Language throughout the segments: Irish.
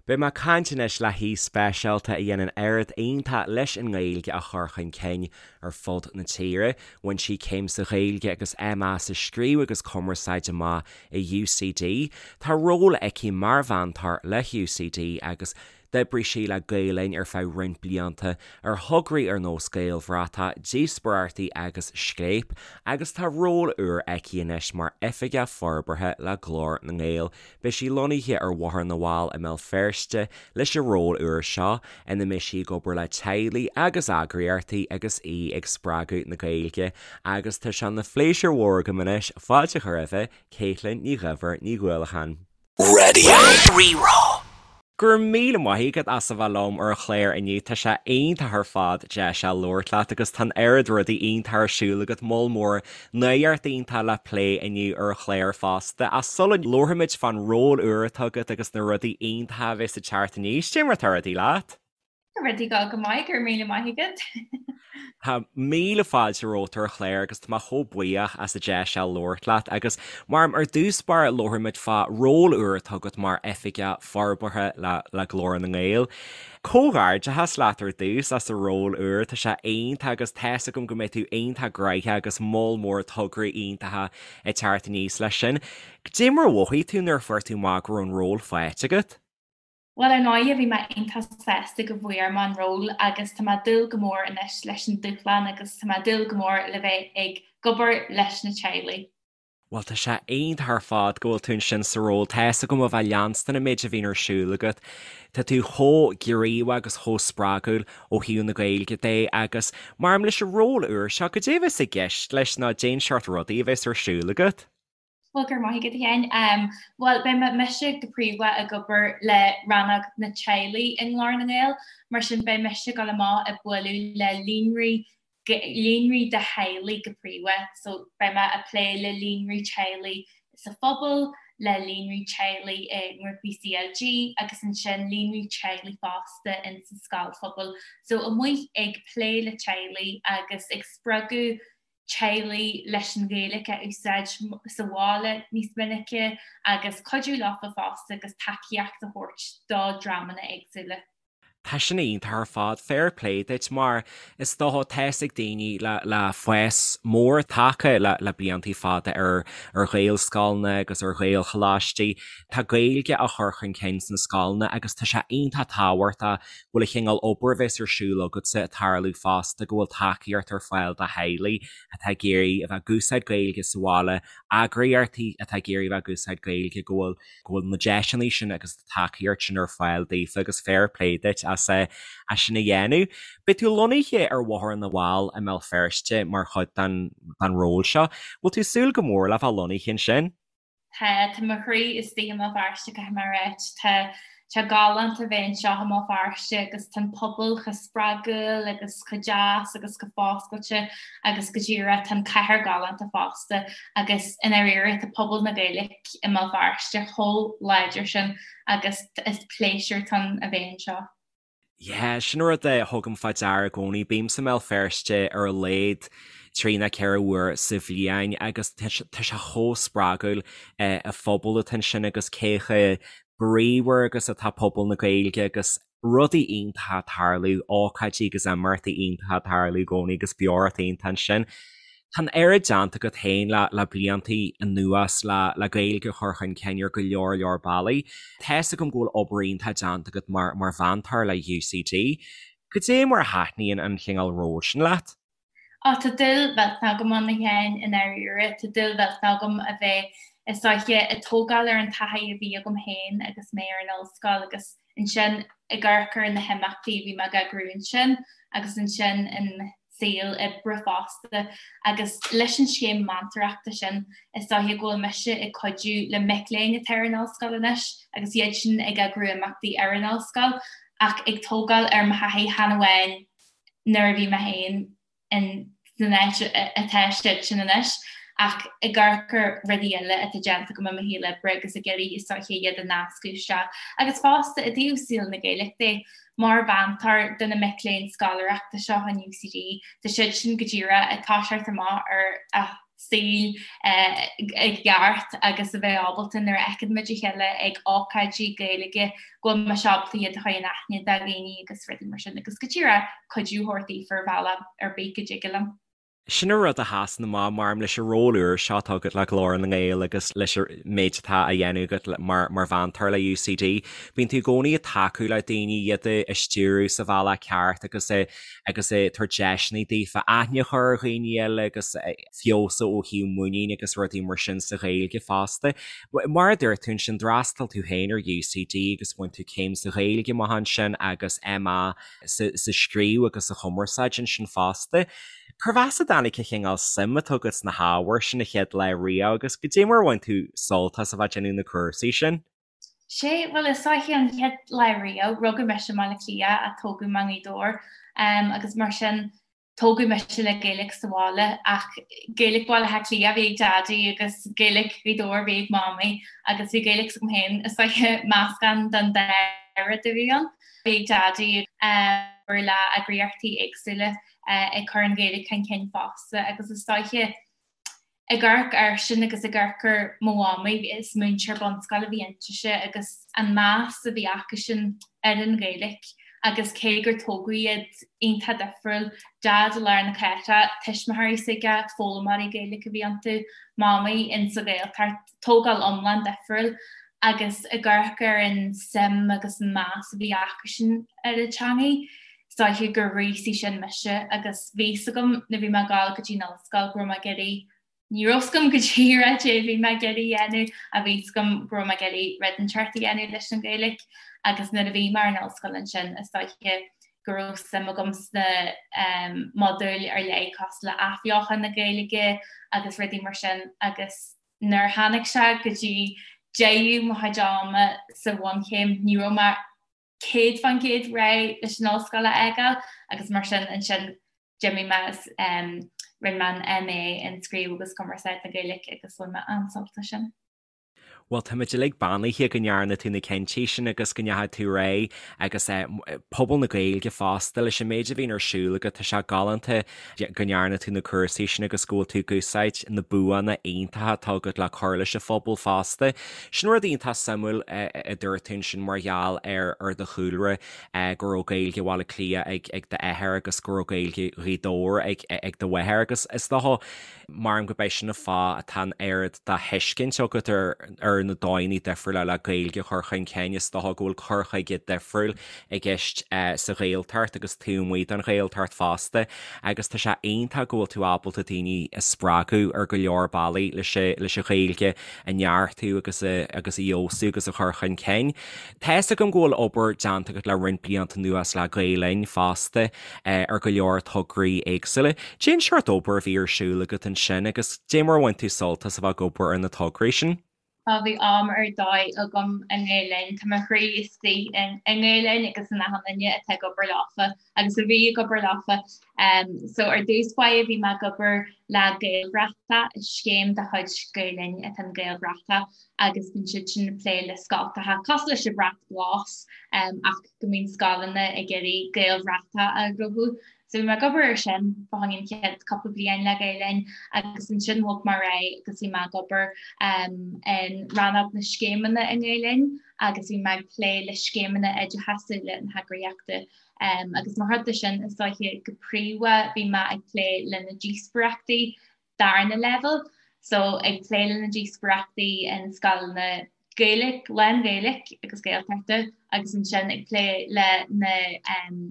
Beidh mé ag caint anois le haoi speisialta a dhéanann oiread iontach leis an nGaeilge a chur chun cinn ar fud na tíre. Bhain sí céim sa Ghaeilge agus MA sa Scríobh agus Cumarsáid amach i UCD. Tá ról aici mar mheantóir le UCD agus D'oibrigh sí le Gael Linn ar feadh roinnt blianta ar thograí ar nós Gaelbhratach, Díospóireachtaí agus Scléip agus tá ról úr aici anois mar Oifigeach Forbartha le Glór na nGael. Beidh sí lonnaithe ar Bhóthar na bhFál i mBéal Feirste leis an ról úr seo, ina mbeidh sí ag obair le teaghlaigh agus eagraíochtaí agus í ag spreagadh na Gaeilge. Agus tá sé ina phléisiúr mhór agam anois fáilte a chur roimhe, Caitlín Ní Dhuibhir Ní Dhuallacháin. Raidió Rí-Rá. Go raibh míle maith agat as a bheith liom ar an chlár inniu, tá sé iontach ar fad deis a labhairt leat agus tá an oiread rudaí iontach ar siúl agat, moll mór nuacht iontach le plé inniu ar an chlár fosta. Ach sula labharfaimid fán ról úr atá agat agus na rudaí iontacha a bheas ag teacht aníos, cad é mar atá rudaí leat? Tá rudaí ag dul go maith, go raibh míle maith agat. Tá míle fáilte romhat ar an chlár agus tá mé chomh buíoch as an deis seo labhairt leat agus mar ar dtús báire labharfaimid fá ról úr atá agat mar Oifigeach Forbartha le le Glór na nGael. Comhghairdeachas leat ar dtús as an ról úr, tá sé iontach agus tá's agam go mbeidh tú iontach gnoitheach agus moll mór tograí iontacha ag teacht aníos leis sin. Cad é mar a mhothaigh tú nuair a fuair tú amach go raibh an ról faighte agat? Bhuel, ar ndóighe, bhí mé iontach sásta go bhfuair mé an ról agus tá mé ag dúil go mór anois leis an dúshlán agus tá mé ag dúil go mór le bheith ag obair leis na teaghlaigh. Bhuel, tá sé iontach ar fad go bhfuil tú ansin sa ról. Tá's agam ó bheith ag leanstan an méid a bhíonn ar siúl agat. Tá tú chomh gníomhach agus chomh spreagúil ó thaobh na Gaeilge de agus mar leis an ról úr seo, cad é a bheas i gceist leis nó cén seort rudaí a bheas ar siúl agat? Bhuel, go raibh maith agat, a Sheáin. Bhuel, beidh mé mise go príomha ag obair le rannóg na teaghlaigh i nGlór na nGael, mar sin beidh mise ag dul amach ag bualadh le líonraí líonraí de theaghlaigh go príomha. So beidh mé ag plé le líonraí teaghlaigh sa phobal, le líonraí teaghlaigh i ngrúpaí CLG agus ansin líonraí teaghlaigh fosta in sa scoil phobail. So amuigh ag plé le teaghlaigh agus ag spreagadh teaghlaigh leis an Ghaeilge a úsáid sa bhaile níos minice agus cuidiú leofa fosta agus tacaíocht a thabhairt do dreamanna éagsúla. Tá sin iontach ar fad, fair play duit mar is dócha tá's ag daoine le le fás mór tagtha le le bliantaí fada ar ar Ghaelscoileanna agus ar Ghaelcholáistí. Tá Gaeilge á chur chun cinn sna scoileanna agus tá sé iontach tábhachtach go bhfuil an chineál obair a bheas ar siúl agatsa ag tarlú fosta, go bhfuil tacaíocht ar fáil do theaghlaigh atá ag iarraidh a bheith ag úsáid Gaeilge sa bhaile, eagraíochtaí atá ag iarraidh a bheith ag úsáid Gaeilge, go bhfuil go bhfuil na deiseanna sin agus na tacaíocht sin ar fáil daofa agus fair play duit as é as sin a dhéanamh. Beidh tú lonnaithe ar Bhóthar na bhFál i mBéal Feirste mar chuid den den ról seo. Bhfuil tú ag súil go mór le bheith lonnaithe ansin? Tá, tá mo chroí istigh i mBéal Feirste, caithfidh mé a ráit. Tá sé galánta bheith anseo i mBéal Feirste agus tá an pobal chomh spreagúil agus chomh deas agus chomh foscailte agus go díreach tá an cathair galánta fosta agus i ndáiríre tá pobal na Gaeilge i mBéal Feirste chomh láidir sin agus is pléisiúr atá ann a bheith anseo. Yeah, sin rud a thugaim fá deara i gcónaí. Bímse i mBéal Feirste ar a laghad trí nó 4 uair sa bhliain agus tá sé chomh spreagúil an phobal atá ansin agus cé chomh bríomhar agus atá pobal na Gaeilge agus rudaí iontacha ag tarlú, ócáidí agus imeachtaí iontacha ag tarlú i gcónaí agus beocht iontach ansin. Tá an oiread déanta agat féin le le bliantaí anuas le le Gaeilge a chur chun cinn ar go leor leor bealaí. Tá's agam go bhfuil obair iontach déanta agat mar mar mheantóir le UCD. Cad é mar a thaitníonn an chineál ról sin leat? Á, tá dúil mhillteanach agam ann a Sheáin, i ndáiríre. Tá dúil mhillteanach agam a bheith, is dóiche, ag tógáil ar an taithí a bhí agam féin agus mé ar an ollscoil agus ansin ag amharc ar na himeachtaí a bhí mé ag eagrú ansin agus ansin in saol oibre fosta agus leis an scéim meantóireachta sin is dóiche go bhfuil mise ag cuidiú le mic léinn atá ar an ollscoil anois agus iad sin ag eagrú imeachtaí ar an ollscoil ach ag tógáil ar mo thaithí chan amháin nuair a bhí mé féin in san áit atá siad sin anois ach ag amharc ar rudaí eile atá déanta agam i mo shaol oibre agus ag iarraidh is dóiche iad a nascadh isteach agus fosta i dtaobh saol na Gaeilge de Mar mheantóir do na mic léinn scoláireachta seo in UCD, tá siad sin go díreach ag toiseacht amach ar a saoil i gceart agus a bheith ábalta nuair a fheiceann muid a chéile ag ócáidí Gaeilge go bhfuil mise ábalta iad a chur in aithne do dhaoine agus rudaí mar sin agus go díreach cuidiú a thabhairt daofa ar bhealach ar bith go dtig liom. Sin an rud a sheasann amach maram leis an ról úr seo atá agat le Glór na nGael agus leis an méid atá á dhéanamh agat mar mheantóir le UCD. Bíonn tú i gcónaí ag tacú le daoine, iad a stiúradh sa bhealach ceart agus agus ag tabhairt deiseanna daofa aithne a chur ar dhaoine eile agus feabhsú ó thaobh muinín agus rudaí mar sin sa Ghaeilge fosta. Mar a dúirt tú ansin, d'fhreastail tú féin ar UCD agus bhain tú céim sa Ghaeilge amach ansin agus MA sa scríobh agus sa chumarsáid ansin fosta. Cérbh as a dtáinig an chineál suim atá agat sna hábhair sin an chéad lá riamh agus goidé mar a bhain tú sult as a bheith ag déanamh na cúrsaí sin? Sé, bhuel is dóiche an chéad lá riamh, rugadh mise i mBaile Átha Cliath ach tógadh mé i nGaoth Dobhair agus mar sin tógadh mise le Gaeilge sa bhaile ach Gaeilge Bhaile Átha Cliath a bhí ag Daidí agus Gaeilge Ghaoth Dobhair a bhí ag Mamaí agus bhí Gaeilge s'agam féin, is dóiche meascán den dá rud a bhí ann. Bhí ag Daidí obair le eagraíochtaí éagsúla ag cur an Ghaeilge chun cinn fosta agus is dóiche Ag amharc air sin agus ag amharc ar mo mhamaí, is múinteoir bunscoile a bhí intise agus an meas a bhí acusan ar an Ghaeilge agus cé gur tógadh iad iontach difriúil, Daid i lár na cathrach, tuismitheoirí s'aige, foghlaimeoirí Gaeilge a bhí iontu, Mamaí in sa Ghaeltacht, tógáil iomlán difriúil agus ag amharc ar an suim agus an meas a bhí acusan ar an teangaidh. Is dóiche gur ghríosaigh sin mise agus bhí 's agam nuair bhí mé ag gabháil go dtí an ollscoil go raibh mé ag iarraidh, ní raibh 's agam go díreach caidé a bhí mé ag iarraidh a dhéanamh ach bhí 's agam go raibh mé ag iarraidh rud inteacht a dhéanamh leis an Ghaeilge agus nuair a bhí mé ar an ollscoil ansin is dóiche go raibh suim agam sna modúil ar leith cosúil le athbheochan na Gaeilge agus rudaí mar sin agus nuair a tháinig sé go dtí deireadh mo chuid ama sa bhunchéim ní raibh mé 100% réidh leis an ollscoil a fhágáil agus mar sin ansin d'imigh mé is rinne mé an MA in Scríobh agus Cumarsáid na Gaeilge agus bhain mé an-sult as sin. Bhuel, táimid uilig beannaithe go ndearna tú na cinntí sin agus go ndeachaigh tú ar aghaidh agus pobal na Gaeilge fosta leis an méid a bhíonn ar siúl agat, tá sé galánta go ndearna tú na cúrsaí sin agus go bhfuil tú ag úsáid na buanna iontacha atá agat le cur leis an phobal fosta. Sin rud iontach suimiúil a dúirt tú ansin mar gheall ar ar do chúlra, go raibh Gaeilge Bhaile Átha Cliath ag d'athair agus go raibh Gaeilge Ghaoth Dobhair ag do mháthair agus is dócha Maram gurb é sin an fáth atá an oiread de thuiscint agat ar na dóigheanna difriúla le Gaeilge a chur chun cinn. Is dócha go bhfuil cur chuige difriúil i gceist sa Ghaeltacht agus taobh amuigh den Ghaeltacht fosta agus tá sé iontach go bhfuil tú ábalta daoine a spreagadh ar go leor bealaí leis an Ghaeilge a neartú agus a agus a fheabhsú agus a chur chun cinn. Tá fhios agam go bhfuil obair déanta agat le roinnt blianta anuas le Gael Linn fosta ar go leor tograí éagsúla. Cén seort obair a bhí ar siúl agat ansin agus dé mar a bhain tú sult as a bheith ag obair ar na tograí sin? Á bhí am ar dóigh agam i nGael Linn. Tá mo chroí istigh i nGael Linn agus in achan duine atá ag obair leofa agus a bhí ag obair leofa. So ar dtús báire bhí mé ag obair le Gaelbhratach, scéim de chuid Gael Linn atá in Gaelbhratach agus bíonn siad sin ag plé le scoltacha cosúil leis an Bhrat Glas ach go mbíonn scoileanna ag iarraidh Gaelbhratach a ghnóthú. So bhí mé ag obair ar sin fá choinne an chéad cúpla bliain le Gael Linn agus ansin bhog mé ar aghaidh agus bhí mé ag obair in rannóg na scéimeanna i nGael Linn agus bhí mé ag plé le scéimeanna oideachasúla na heagraíochta. Agus mar chuid de sin is dóiche go príomha bhí mé ag plé le na díospóireachtaí darna leibhéal, so ag plé le na díospóireachtaí in scoileanna Gaeilge, lán-Ghaeilge agus Gaeltachta agus ansin ag plé le na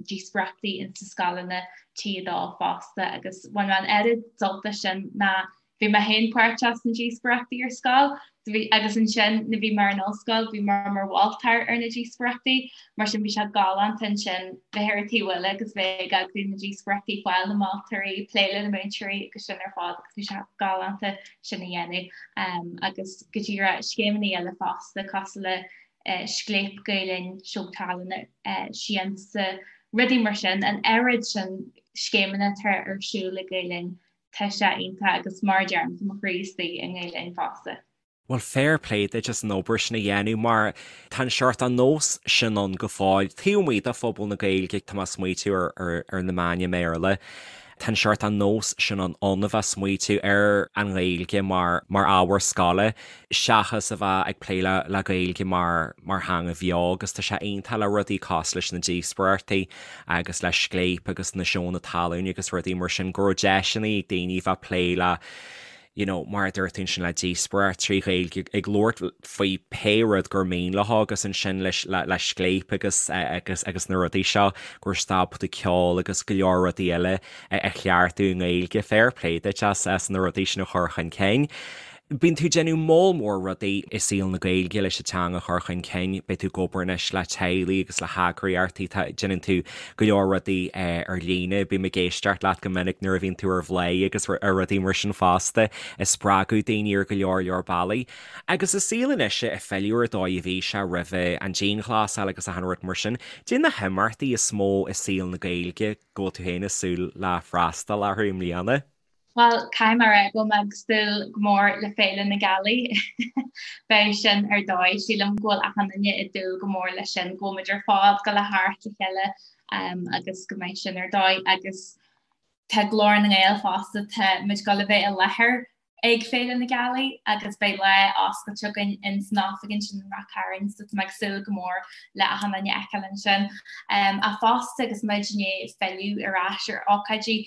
díospóireachtaí in sa scoileanna T2 fosta agus bhain mé an oiread sult as sin ná bhí mé féin páirteach sna díospóireachtaí ar scoil agus ansin nuair bhí mé ar an ollscoil bhí mé mar mholtóir ar na díospóireachtaí mar sin bhí sé galánta ansin bheith ar an taobh eile agus bheith ag eagrú na díospóireachtaí, fáil na moltóirí, plé le na múinteoirí agus sin ar fad agus bhí sé galánta sin a dhéanamh agus go díreach scéimeanna eile fosta cosúil le Scléip Gael Linn, Seó Tallainne, Siansa, rudaí mar sin, an oiread sin scéimeanna atá ar siúl ag Gael Linn Tá sé iontach agus mar a deirim, tá mo chroí istigh i nGael Linn fosta. Bhuel, fair play duit as an obair sin a dhéanamh mar tá an seort an nós sin ann go fóill taobh amuigh de phobal na Gaeilge, tá mé ag smaoitiú ar na meáin i mBéarla. Tá an seort an nós sin ann a bheith ag smaoitiú ar an nGaeilge mar mar ábhar scoile seachas a bheith ag plé le le Gaeilge mar mar theanga bheo agus tá sé iontach le rudaí cosúil leis na díospóireachtaí agus le Scléip agus na seónna talúin agus rudaí mar sin go raibh deiseanna ag daoine bheith ag plé le you know, mar a dúirt tú ansin le díospóireacht trí Ghaeilge ag labhairt faoi pé rud gur mian leo agus ansin leis le le Scléip agus agus agus na rudaí seo go raibh siad ábalta ceol agus go leor rudaí eile a chleachtadh i nGaeilge. Fair play duit as as na rudaí sin a chur chun cinn. Bíonn tú ag déanamh moll mór rudaí i saol na Gaeilge leis an teanga a chur chun cinn, beidh tú ag obair anois le teaghlaigh agus le heagraíochtaí, tá, déanann tú go leor rudaí ar líne, bím ag éisteacht leat go minic nuair a bhíonn tú ar Bhladhaire agus ar rudaí mar sin fosta, ag spreagadh daoine ar go leor leor bealaí. Agus an saol anois ag filleadh ar an dóigh a bhí sé roimhe an dianghlasáil agus achan rud mar sin, caidé na himeachtaí is mó i saol na Gaeilge go bhfuil tú féin ag súil le freastal orthu i mbliana? Bhuel, caithfidh mé a rá go bhfuil mé ag súil go mór le Féile na Gealaí. Beidh sin ar dóigh. Sílim go bhfuil achan duine ag dúil go mór leis sin, go bhfuil muid ar fad ag dul a theacht le chéile agus go mbeidh sin ar dóigh. Agus tá Glór na nGael fosta, tá muid ag dul a bheith i láthair ag Féile na Gealaí agus beidh lá oscailte againn in san oifig ansin in Ráth Cairn, so tá mé ag súil go mór le achan duine a fheiceáil ansin. Ach fosta agus muid i ndiaidh filleadh ar ais ar ócáidí,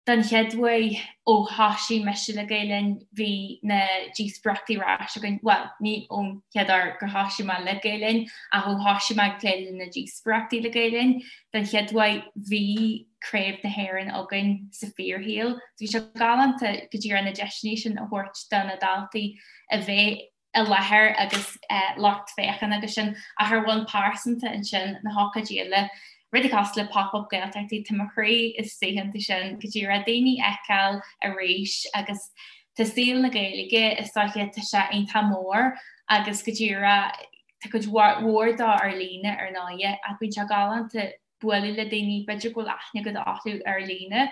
Don chéad uair ó thoisigh mise le Gael Linn bhí na díospóireachtaí ar ais againn, bhuel, ní ón chéad uair gur thoisigh mé le Gael Linn ach ó thoisigh mé ag plé le na díospóireachtaí le Gael Linn, don chéad uair bhí Craobh na hÉireann againn sa fíorshaol. So bhí sé galánta go díreach na deiseanna sin a thabhairt do na daltaí a bheith i láthair agus lucht féachana agus sin, ach ar bhonn pearsanta ansin, na hócáidí eile, rudaí cosúil le Pop Up Gaeltachtaí, tá mo chroí istigh iontu sin, go díreach daoine a fheiceáil arís agus tá saol na Gaeilge, is dóiche, tá sé iontach mór agus go díreach tá cuid mhór dó ar líne ar ndóighe ach bíonn sé galánta bualadh le daoine, b'fhéidir go bhfuil aithne agat orthu ar líne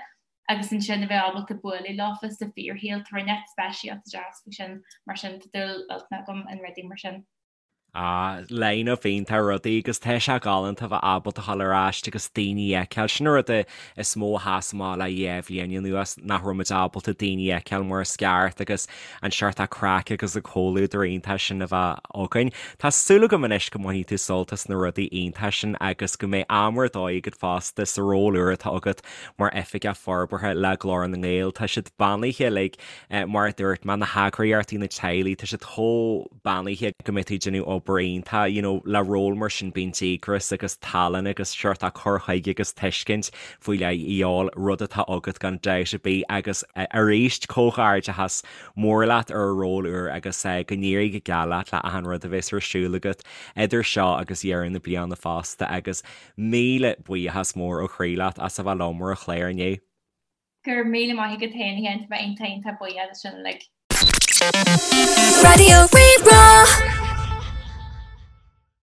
agus ansin a bheith ábalta bualadh leofa sa fíorshaol, tá rud inteacht speisialta deas faoi sin, mar sin tá dúil mhillteanach agam in rudaí mar sin. Ah, line-up iontach rudaí agus tá sé galánta a bheith ábalta a dhul ar ais agus daoine a fheiceáil. Sin an rud is mó a sheas amach le dhá bhliain anuas, nach raibh muid ábalta daoine a fheiceáil mar is ceart agus an seort craic agus an comhluadar iontach sin a bheith againn. Tá súil agam anois go mbainfidh tú sult as na rudaí iontacha sin agus go mbeidh am ar dóigh agat fosta sa ról úr atá agat mar Oifigeach Forbartha le Glór na nGael. Tá siad beannaithe uilig, mar a dúirt mé, na heagraíochtaí, na teaghlaigh, tá siad chomh beannaithe go mbeidh tú ag déanamh obair iontach, you know, le ról mar sin bíonn díograis agus tallann agus seort cur chuige agus tuiscint faoi leith a dhíobháil, rud atá agat gan dabht ar bith agus arís comhghairdeachas mór leat ar an ról úr agus go n-éirí go geal leat le achan rud a bheas ar siúl agat idir seo agus deireadh na bliana fosta agus Míle buíochas mór ó chroí leat as a bheith liom ar an chlár inniu. Go raibh míle maith agat féin a Sheáin, tá mé iontach iontach buíoch as sin uilig. Raidió Rí-Rá.